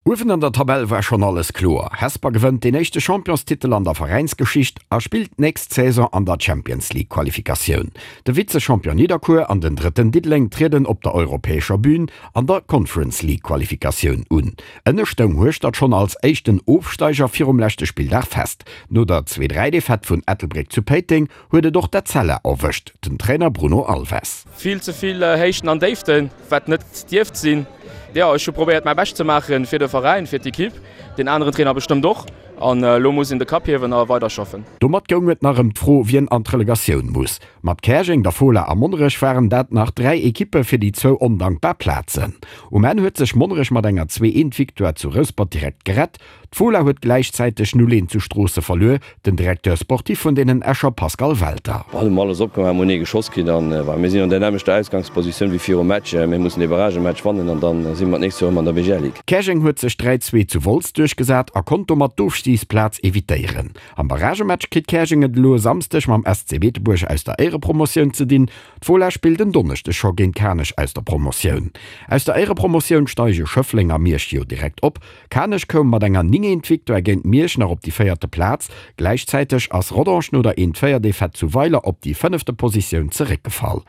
Uewen an der Tabell war schonn alles kloer, Hesper gewënnt deen éischte Championstitel an der Veräinsgeschicht a spillt d'nächst Saison an der Champions League Qualifikatioun. De Vize-Champion Nidderkuer an den Drëtten Diddeleng trieden op der europäescher Bün an der Conference League Qualifikatioun un. Ënne stoung Hueschtert schonn als éischten Ofsteiger virum leschte Spilldag fest. No der 2, 3 Defaite vun Ettelbréck zu Péiteng huet et och d'Etzella erwëscht, den Trainer Bruno Alves. Vill ze vill Héichten an Déiften, wat net dierft sinn. Jo, ech hu probéiert mäi Bescht ze maachen fir de Veräin, fir d'Ekipp, deen aneren Trainer bestëmmt och. An elo muss een de Kapp hiewen a weiderschaffen. Domat goung et nach ëm d'Fro, wien an d'Relegatioun muss. Mat Käerjeng, der Fola a Monnerech waren dat nach 3 Ekippe fir déi zwou ondankbar Plazen. Um Enn huet sech Monnerech mat enger 2, 1 Victoire zu Rouspert direkt gerett. D'Fola huet gläichzäiteg 0, 1 zu Stroosse verluer. Den Directeur sportif vun deenen Escher Pascal Welter. Mir hunn alles opgemaach, mir hunn ee geschoss kritt an mir sinn an der nämmlechter Ausgangspositioun wéi virum Match. Mir mussen dee Barragematch wannen an dann si mer d'nächst Joer erëm an der BGL Ligue. Käerjeng huet sech 3, 2 zu Wolz duerchgesat a konnt domat d'Ofstigsplaz evitéieren. Am Barragematch kritt Käerjeng et elo e Samsdeg mam SC Beetebuerg aus der Éierepromotioun ze dinn. D'Fola spillt en Donneschdeg scho géint Kanech aus der Promotioun. Aus der Éierepromotioun steige Schëffleng a Miersch jo direkt op. Kanech koum mat enger 9 eent Victoire géint Miersch nach op déi véierte Plaz. Gläichzäiteg ass Rodange no der eent 4 Defaite zu Weiler op déi fënnefte Positioun zeréckgefall.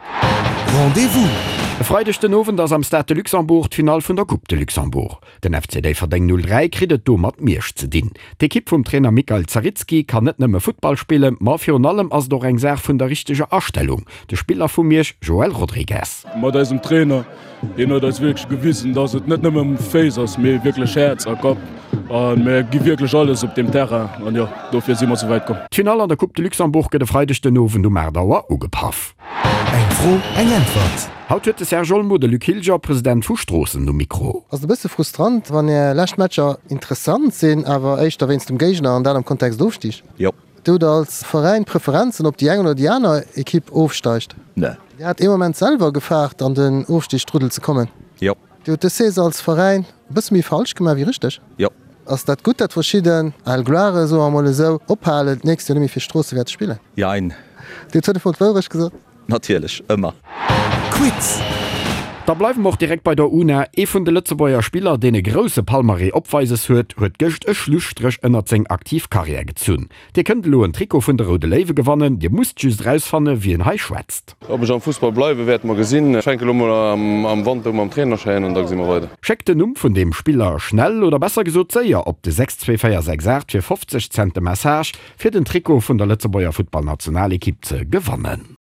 Rendez-vous! E Freideg den Owend ass am Stade de Luxembourg d'Finall vun der Coupe de Luxembourg. Den FC Déifferdeng 03 kritt et do mat Miersch ze dinn. D'Ekipp vum Trainer Mikael Zaritski kann net nëmme Futtball spillen, ma virun allem ass et och eng Saach vun der richteger Astellung. De Spiller vu Miersch Joel Rodrigues. Mat eisem Trainer Hien huet eis wierklech gewisen, dass et net nëmme Féiss ass, mee wierklech Häerz a Kapp. A mir gi wierklech alles op deem Terrain an jo, dofir si mer sou wäit komm. D'Finall an der Coupe de Luxembourg gëtt e Freideg den Owend um 8 Auer ugepaff. Eng Fro, eng Äntwert. Haut huet de Serge Olmo de Luc Hilger, President vu Stroossen, um Mikro. Ass et e bësse frustrant, wann Är lescht Matcher interessant sinn, awer éischter wéinst dem Géigner an dat am Kontext Ofstig? Jo. Dir hutt als Veräin Preferenzen, ob déi eng oder déi aner Ekipp ofsteigt? Ne. Dir hat ee Moment selwer gefaart, an den Ofstigsstruddel ze kommen. Jo. Dir hutt dës Saison als Veräin e bësse méi falsch gemaach wéi richteg? Jo. Ass dat gutt, datt verschidden al Gloiren, soe mer emol esou, ophalen, d'nächst Joer net méi fir Stroosse wäerte spillen? Jein. Dir hutt fënnefmol d'Wourecht gesot. Natierlech, ëmmer. Quiz! Da bleiwe mer och direkt bei der UNA. Ee vun de Lëtzebuerger Spiller, deen e grousse Palmarès opweises huet, huet gëscht e Schlusstréch ënnert seng aktiv Karriär gezunn. Dir kënnt elo en Trikot vun de Roude Léiwe gewannen. Dir musst just erausfanne wien hei schwätzt. Ob ech am Fussball bleiwen, wäerte mer gesinn. Ech fänke lo mol am Wanter u mam Trainerschäin an da gesi mer weider. Schéckt den Numm vun deem Spiller schnell oder besser gesot séier op de 62468 fir 50 Cent de Message. Fir den Trikot vun der Lëtzebuerger Futtballnationalekipp ze gewannen.